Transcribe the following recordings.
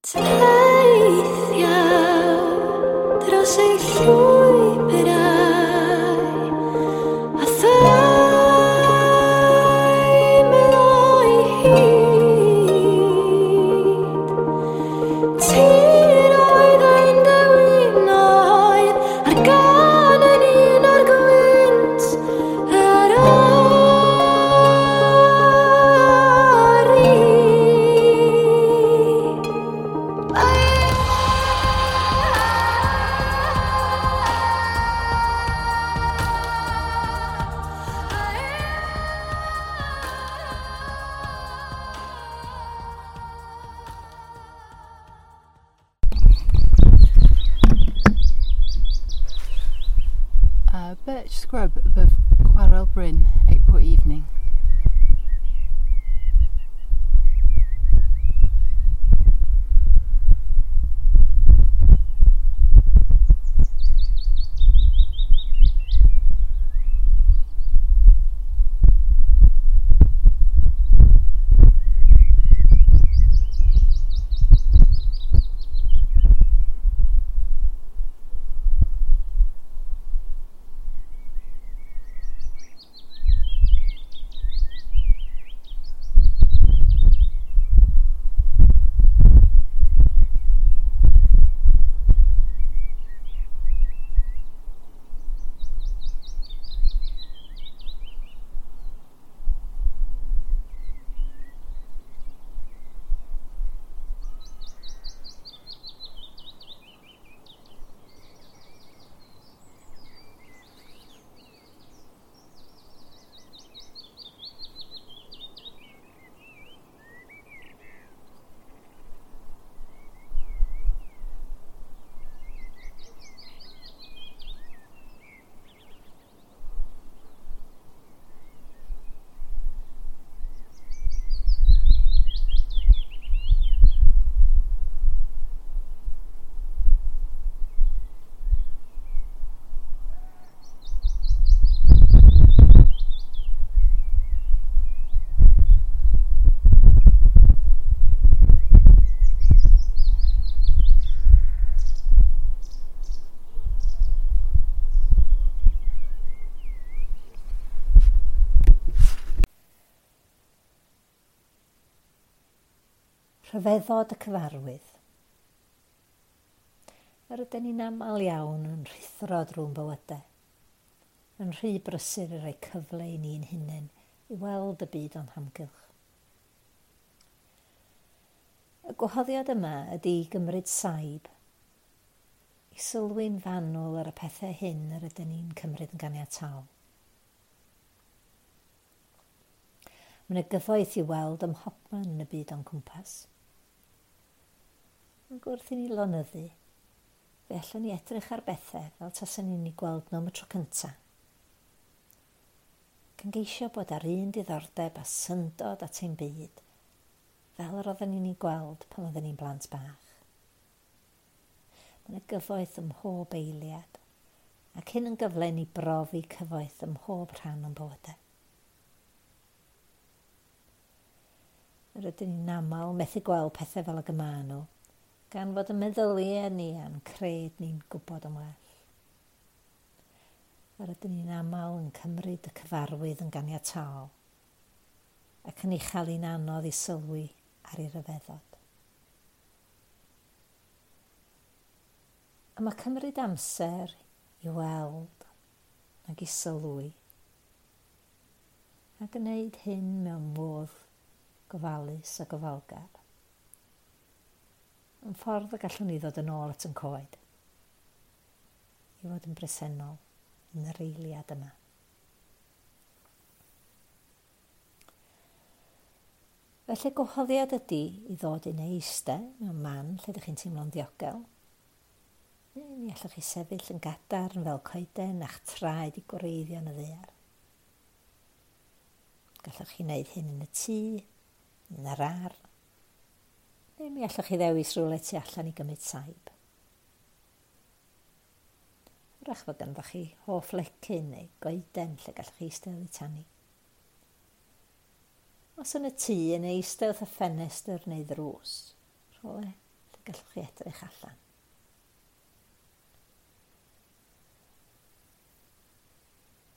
Teithiaf dros ei llwybrau a theimlo'i hyd. Tiroedd ein dewinoedd a'r gân yn un o'r gwynt yr ori. Birch scrub above Chwarel Bryn, April evening. Rhyfeddod y cyfarwydd. Yr ydyn ni'n aml iawn yn rhuthro drwy'n bywydau, yn rhy brysur i roi cyfle i ni'n hunain i weld y byd o'n hamgylch. Y gwahoddiad yma ydy i gymryd saib, i sylwi'n fanwl ar y pethau hyn yr ydyn ni'n cymryd yn ganiataol. Mae yna gyfoeth i weld ym mhobman yn y byd o'n cwmpas. Ac wrth i ni lonyddu, fe allwn ni edrych ar bethau fel tasen ni'n eu gweld nhw am y tro cyntaf. Gan geisio bod ar un diddordeb a syndod at ein byd, fel yr oedden ni'n ei gweld pan oedden ni'n blant bach. Mae yna gyfoeth ym mhob eiliad, ac hyn yn gyfle i ni brofi cyfoeth ym mhob rhan o'n bywydau. Yr ydyn ni'n aml methu gweld pethau fel ag y maen nhw, gan fod y meddyliau ni a'n cred ni'n gwybod yn well. Yr ydyn ni'n aml yn cymryd y cyfarwydd yn ganiataol ac yn ei chael hi'n anodd i sylwi ar ei ryfeddod. A mae cymryd amser i weld ac i sylwi a gwneud hyn mewn modd gofalus a gofalgar yn ffordd y gallwn ni ddod yn ôl at yn coed, i fod yn bresennol yn yr eiliad yma. Felly gwahoddiad ydy i ddod i neu eistedd mewn man lle ydych chi'n teimlo'n ddiogel. Neu mi allwch chi sefyll yn gadarn fel coeden a'ch traed i gwreiddio yn y ddaear. Gallwch chi wneud hyn yn y tŷ, yn yr ardd, neu mi allwch chi ddewis rhywle tu allan i gymryd saib. Wrach fod ganddo chi hoff lecyn neu goeden lle gallwch chi eistedd oddi tani. Os yn y tŷ, yn eistedd wrth y ffenestr neu ddrws, rhywle lle gallwch chi edrych allan.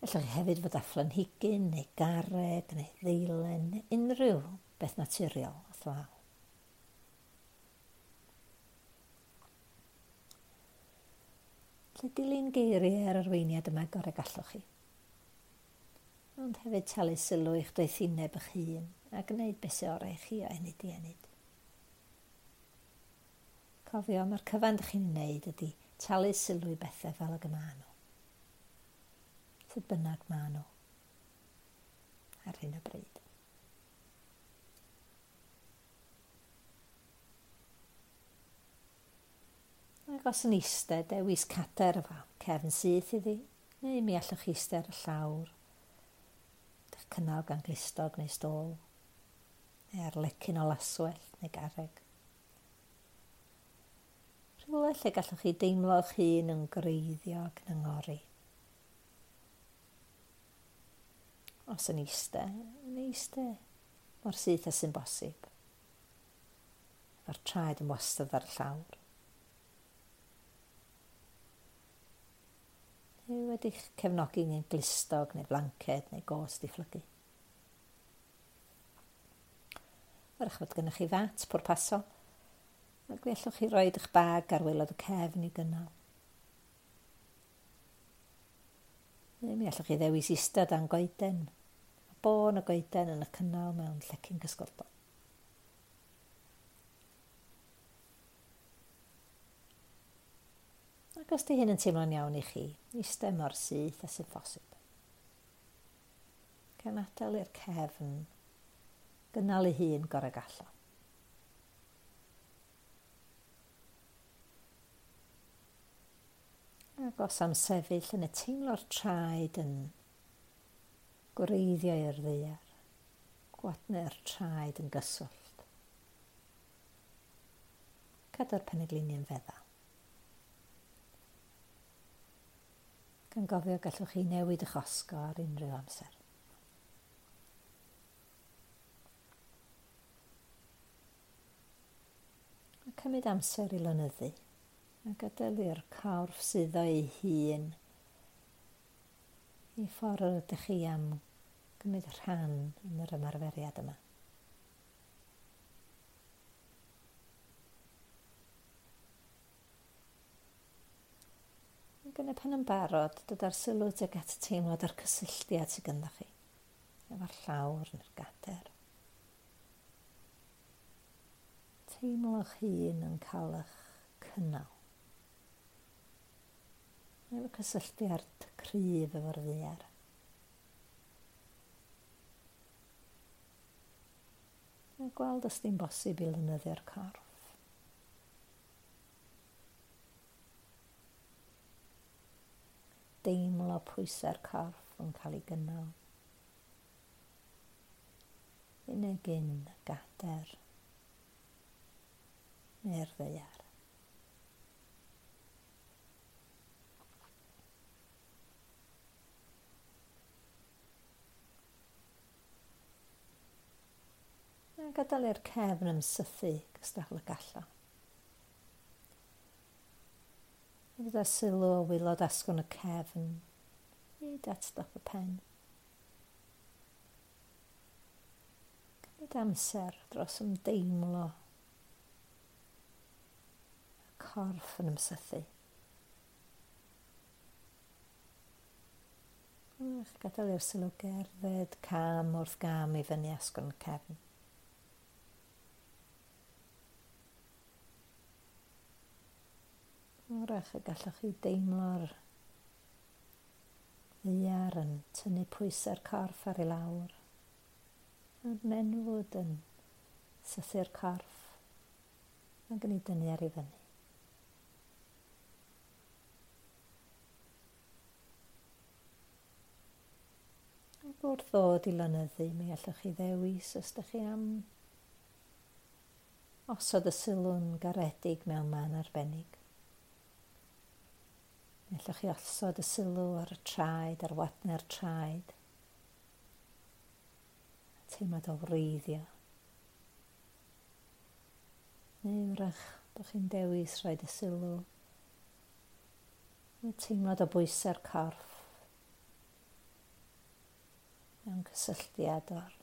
Allwch chi hefyd fod â phlanhigyn neu garreg neu ddeilen, neu unrhyw beth naturiol wrth law. Felly dilyn geiriau yr arweiniad yma gorau gallwch chi. Ond hefyd talu sylw i'ch doethineb eich hun a gwneud beth sy'n orau i chi o ennyd i ennyd. Cofio, mae'r cyfan ydych chi'n wneud ydy talu sylw i bethau fel ag y maen nhw. Sut bynnag maen nhw ar hyn o bryd. Ac os yn eistedd, dewis cadair efo cefn syth iddi, neu mi allwch chi eistedd ar y llawr, eich cynnal gan glustog neu stôl, neu ar lecyn o laswellt neu garreg. Rhywle lle gallwch chi deimlo eich hun yn gwreiddio ac yn angori. Os yn eistedd, yn eistedd mor syth â sy'n bosib. Efo'r traed yn wastad ar y llawr. Neu wedi'ch cefnogi yn glustog neu blanced neu gôt di phlygu. Wrach fod gennych chi fat pwrpasol, ac fe allwch chi roid eich bag ar waelod y cefn i gynnal. Neu mi allwch chi ddewis eistedd dan goeden, a bôn y goeden yn y cynnal mewn llecyn cysgodol. Ac os di hyn yn teimlo'n iawn i chi, eistedd mor syth â sy'n phosib. Gan adael i'r cefn gynnal ei hun gorau gallo. Ac os am sefyll yn y teimlo'r traed yn gwreiddio i'r ddaear, gwadnau'r traed yn gyswllt. Cadw'r penegliniau'n feddal. Gan gofio gallwch chi newid eich osgo ar unrhyw amser. A cymryd amser i lonyddu a gadael i'r corff suddo ei hun i ffordd yr ydych chi am gymryd rhan yn yr ymarferiad yma. Ac yn y pen yn barod, dod â'r sylw tuag at y teimlad a'r cysylltiad sydd ganddo chi, efo'r llawr neu'r gader. Teimlo'ch hun yn cael eich cynnal. Efo cysylltiad cryf efo'r ddaear. A gweld os di'n bosib i lynyddio'r corff. Deimlo pwysau'r corff yn cael ei gynnal. Unig un gader neu'r ddaear. A gadael i'r cefn ymsythu gystal y gallo. A gyda sylw o waelod asgwrn y cefn hyd at dop y pen. Cymryd amser dros ymdeimlo y corff yn ymsythu. Ach, gadael i'r sylw gerdded cam wrth gam i fyny asgwrn y cefn. Wrach y gallwch chi deimlo'r ddaear yn tynnu pwysau'r corff ar ei lawr. A'r nenfwd yn sythu'r corff ac yn ei dynnu ar ei fyny. Ac wrth ddod i lonyddu, mi allwch chi ddewis os ydych chi am osod y sylw'n garedig mewn man arbennig. Mi allwch chi osod y sylw ar y traed, ar wadnau'r traed. Teimlad o wreiddio. Neu wrach Bod chi'n dewis rhoi y sylw y teimlad o bwysau'r corff mewn cysylltiad o'r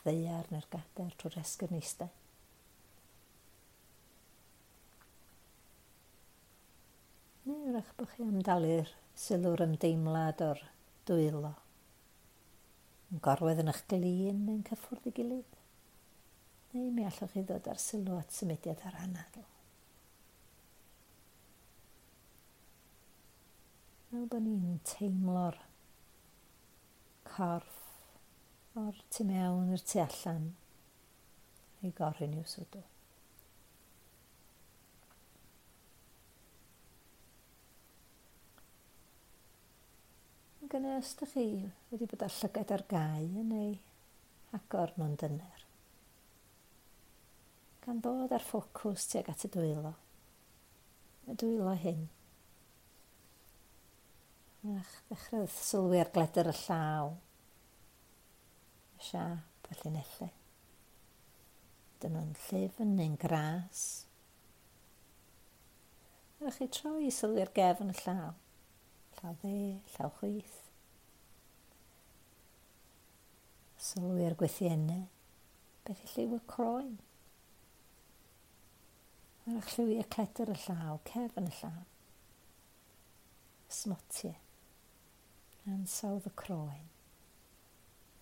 ddaear neu'r gadair trwy'r esgyrn eistedd. Neu wrach bod chi am dalu'r sylw'r ymdeimlad o'r dwylo yn gorwedd yn eich glin neu'n cyffwrdd ei gilydd. Neu mi allwch chi ddod ar sylw at symudiad ar anadl. Fel bod ni'n teimlo'r corff o'r tu mewn i'r tu allan i goryn i'w swdw. Ac yna, os ydych chi wedi bod â llygaid ar gau yn ei agor nhw'n dyner, gan ddod ar ffocws tuag at y dwylo hyn. Ach, ddechrau sylwi ar gledr y llaw, y siâp, y llinellau. Dyn nhw'n llyfn neu'n gras. Ydych chi troi i sylwi ar gefn y llaw. Llaw dde, llaw chwith. Sylwi ar gwythiennau. Beth yw lliw y croen? Ydych lliwiau cledr y llaw, cefn y llaw. Smotiau. Ansawdd y croen.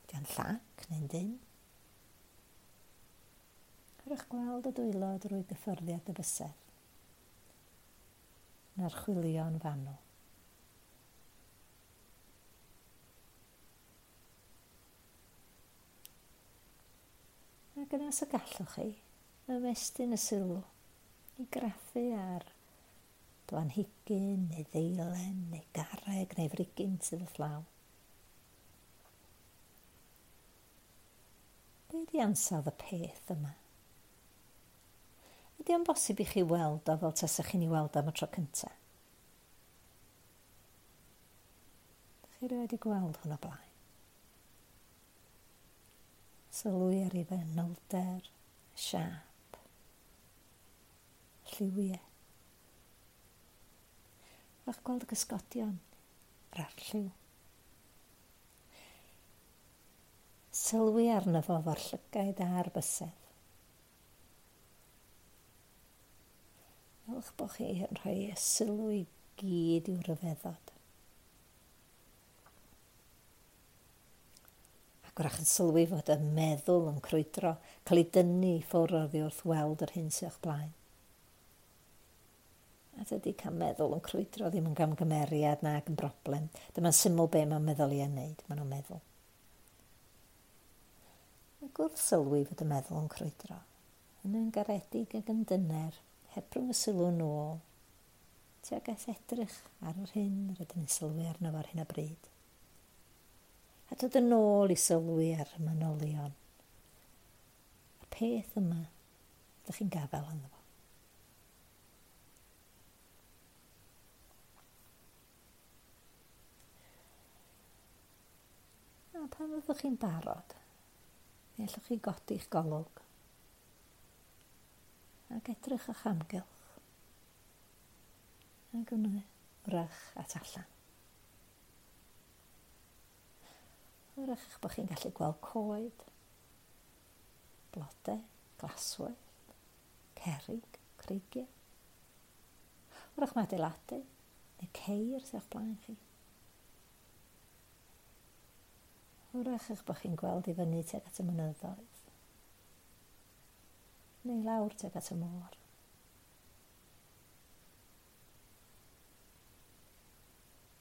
Ydy o'n llac neu'n dyn? Ydych gweld y dwylo drwy gyffyrddiad y bysedd. Yn archwilio'n fanwl. Ac yna os y gallwch chi, ymestyn y sylw i graffu ar blanhigyn neu ddeilen neu garreg neu frigyn sydd wrth law. Be ydi ansawdd y peth yma? Ydy o'n bosib i chi weld o fel tasach chi'n ei weld am y tro cyntaf? Dych chi erioed wedi gweld hwn o blaen? Sylwi ar ei fanylder, siâp, lliwiau. Fach gweld y cysgodion, yr arlliw. Sylwi arno fo fo'r llygaid a'r bysedd. Fel'ch bod chi yn rhoi y sylw i gyd i'w ryfeddod. Ac wrach yn sylwi fod y meddwl yn crwydro, cael ei dynnu i ffwrdd oddi wrth weld yr hyn sydd o'ch blaen. A dydy cael meddwl yn crwydro ddim yn gamgymeriad nag yn broblem. Dyma'n syml be mae'n meddwl i yn wneud, maen nhw'n meddwl. Ac wrth sylwi fod y meddwl yn crwydro, yn garedig ac yn dyner, hebrwng y sylw nôl, tuag at edrych ar yr hyn rydyn ni'n sylwi arno fo ar hyn o bryd. A dod yn ôl i sylwi ar y manylion. Y peth yma, ydych chi'n gafael ynddo fo. A pan fyddwch chi'n barod, mi allwch chi godi'ch golwg ac edrych o'ch amgylch ac yn wrach at allan. Wrach eich bod chi'n gallu gweld coed, blodau, glaswellt, cerrig, creigiau. Wrach mae adeiladu neu ceir sydd o'ch blaen chi. Wrach eich bod chi'n gweld i fyny tuag at y mynyddoedd, neu lawr tuag at y môr.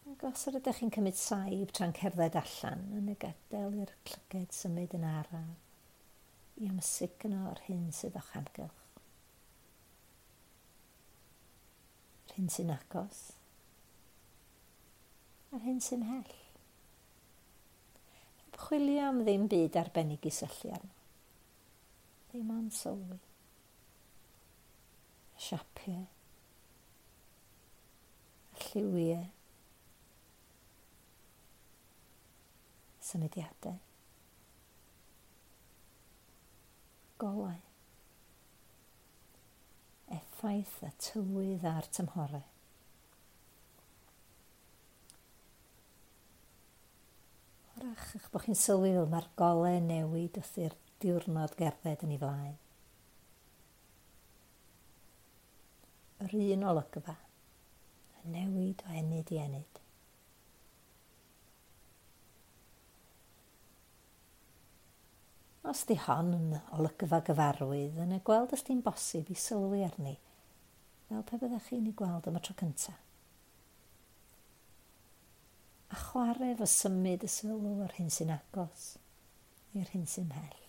Ac os yr ydych chi'n cymryd saib tra'n cerdded allan, yn y gadael i'r llyged symud yn araf i amsugno yr hyn sydd o'ch amgylch. Yr hyn sy'n agos, a'r hyn sy'n mhell. Heb chwilio am ddim byd arbennig i syllu arno. Ddim ond sylwi. Y siapiau, y lliwiau, symudiadau, golau, Effaith y tywydd a'r tymhorau. Hwrach eich bod chi'n sylwi fel mae'r golau newid wrth i'r diwrnod gerdded yn ei flaen. Yr un olygfa, yn newid o ennyd i ennyd. Os di hon yn olygfa gyfarwydd, yna gweld os di'n bosib i sylwi arni, fel pe byddech chi'n ei gweld am y tro cyntaf. A chwarae efo symud y sylw o'r hyn sy'n agos i'r hyn sy'n mhell.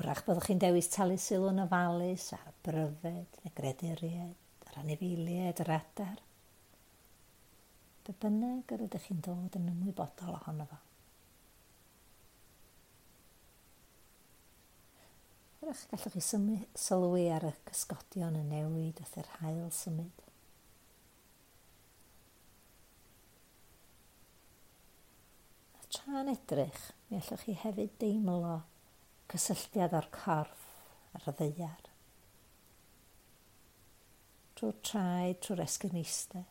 Hwrach byddwch chi'n dewis talu sylw yn ofalus ar bryfed neu greduriaid, yr anifeiliaid, yr adar. Be bynnag yr ydych chi'n dod yn ymwybodol ohono fo. Hwrach gallwch chi sylwi ar y cysgodion yn newid wrth i'r haul symud. A tra'n edrych, mi allwch chi hefyd deimlo cysylltiad o'r corff ar y ddaear. Trwy'r traed, trwy'r esgyrn eistedd.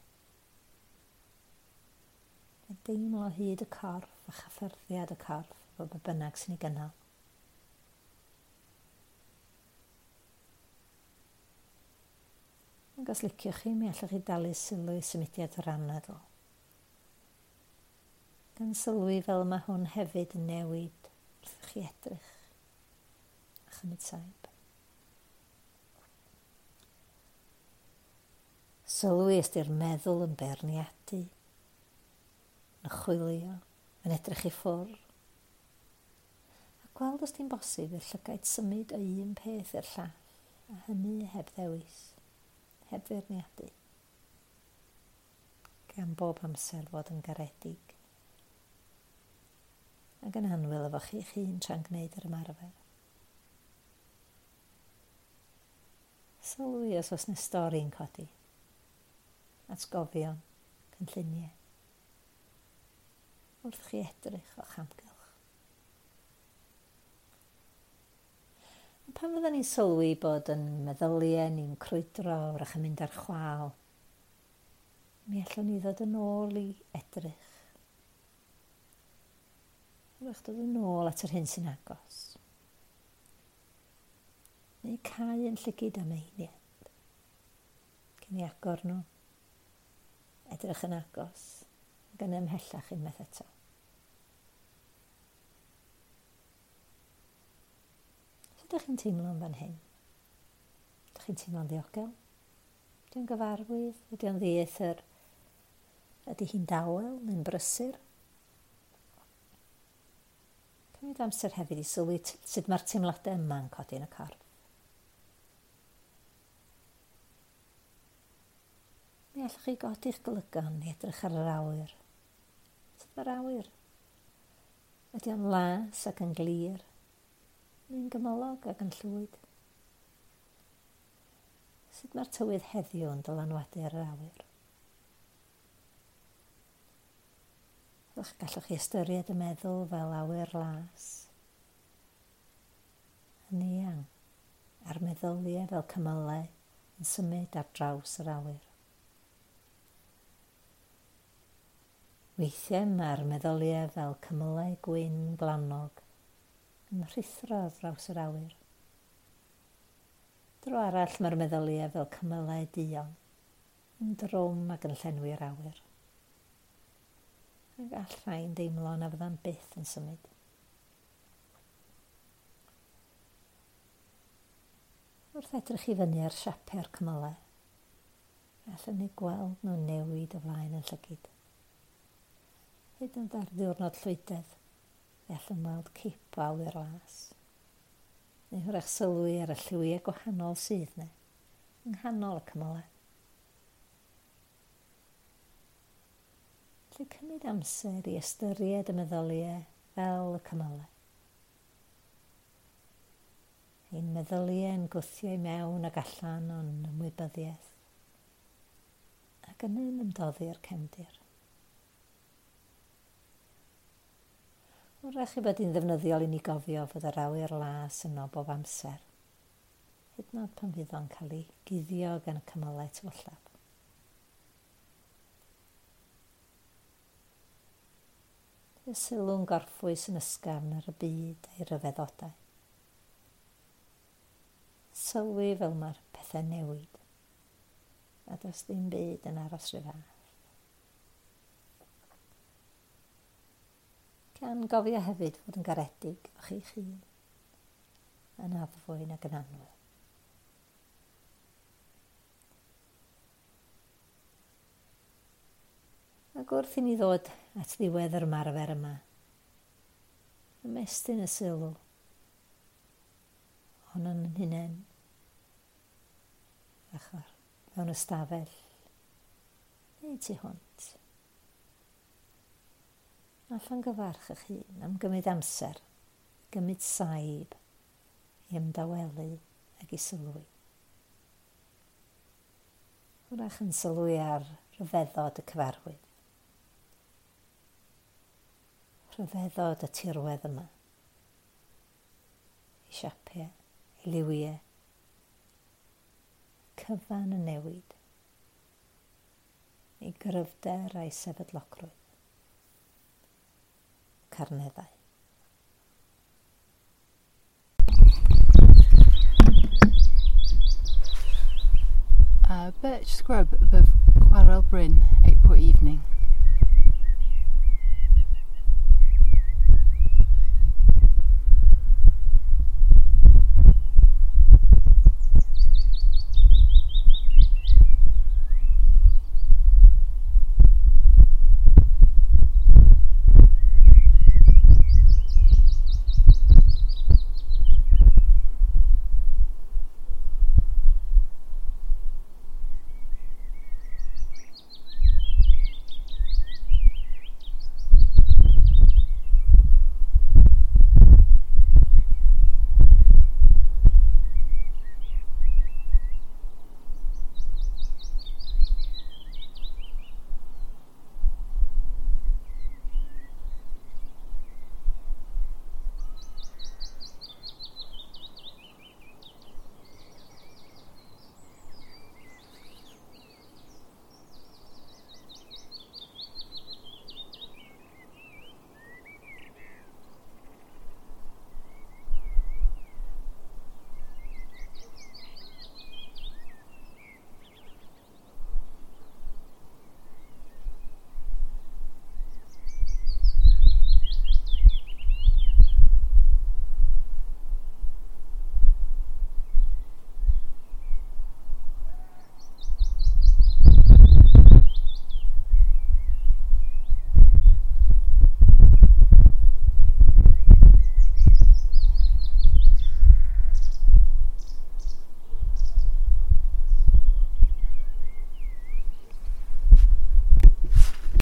A deimlo hyd y corff a chyffyrddiad y corff efo be bynnag sy'n ei gynnal. Ac os liciwch chi, mi allwch chi dalu sylw i symudiad yr anadl. Gan sylwi fel mae hwn hefyd yn newid wrth i chi edrych a chymryd saib. Sylwi os di'r meddwl yn beirniadu, yn chwilio, yn edrych i ffwrdd. A gweld os di'n bosib i'r llygaid symud o un peth i'r llall, a hynny heb ddewis, heb feirniadu. Gan bob amser fod yn garedig ac yn annwyl efo chi'ch hun tra'n gwneud yr ymarfer. Sylwi os oes 'na stori'n codi, atgofion, cynlluniau, wrth chi edrych o'ch amgylch. A pan fydden ni'n sylwi bod yn meddyliau ni'n crwydro wrach yn mynd ar chwâl, mi allwn ni ddod yn ôl i edrych. Wrach dod yn ôl at yr hyn sy'n agos. Neu cau yn llygid am eiliad. Cyn i agor nhw. Edrych yn agos. Ac yn ymhellach unwaith eto. Sut ydych chi'n teimlo yn fan hyn? Ydych chi'n teimlo'n ddiogel? Ydy o'n gyfarwydd? Ydy o'n ddieithr? Ydy hi'n dawel neu'n brysur? Cymryd amser hefyd i sylwi sut mae'r teimladau yma'n codi yn y corff. Mi allwch chi godi'ch golygon i edrych ar yr awyr. Sut mae'r awyr? Ydy o'n las ac yn glir? Neu'n gymylog ac yn llwyd? Sut mae'r tywydd heddiw yn dylanwadu ar yr awyr? Gallwch chi ystyried y meddwl fel awyr las, yn eang, a'r meddyliau fel cymylau yn symud ar draws yr awyr. Weithiau mae'r meddyliau fel cymylau gwyn gwlanog yn rhuthro ar draws yr awyr. Dro arall mae'r meddyliau fel cymylau duon, yn drwm ac yn llenwi'r awyr. A gall rhain deimlo na fydda'n byth yn symud. Wrth edrych i fyny ar siapau'r cymylau, allwn ni gweld nhw'n newid o flaen yn llygid. Hyd yn oed ar ddiwrnod llwydedd, fe allwn weld cip o awyr las. Neu hwrach sylwi ar y lliwiau gwahanol sydd 'na, yng nghanol y cymylau. Felly cymryd amser i ystyried y meddyliau fel y cymylau. Ein meddyliau yn gwthio i mewn ac allan o'n ymwybyddiaeth ac yna'n ymdoddi'r cefndir. Wrach i bod hi'n ddefnyddiol i ni gofio fod yr awyr las yno bob amser, hyd yn oed pan fydd o'n cael ei guddio gan y cymylau tywyllaf. Y sylw'n gorffwys yn ysgafn ar y byd a'i ryfeddodau. Sylwi fel mae'r pethau newid, a does ddim byd yn aros rhyw fath. Gan gofio hefyd fod yn garedig efo chi'ch hun, yn addfwyn ac yn annwyl. Ac wrth i ni ddod at ddiwedd yr ymarfer yma, ymestyn y sylw ohonon yn hunain, ochr mewn ystafell neu tu hwnt. A llongyfarch eich hun am gymryd amser, gymryd saib i ymdawelu ac i sylwi. Wrach yn sylwi ar ryfeddod y cyfarwydd. Rhyfeddod y tirwedd yma. Ei siapiau, ei liwiau. Cyfan yn newid. Ei gryfder a'i sefydlogrwydd. Carneddau. Birch scrub above Chwarel Bryn, April evening.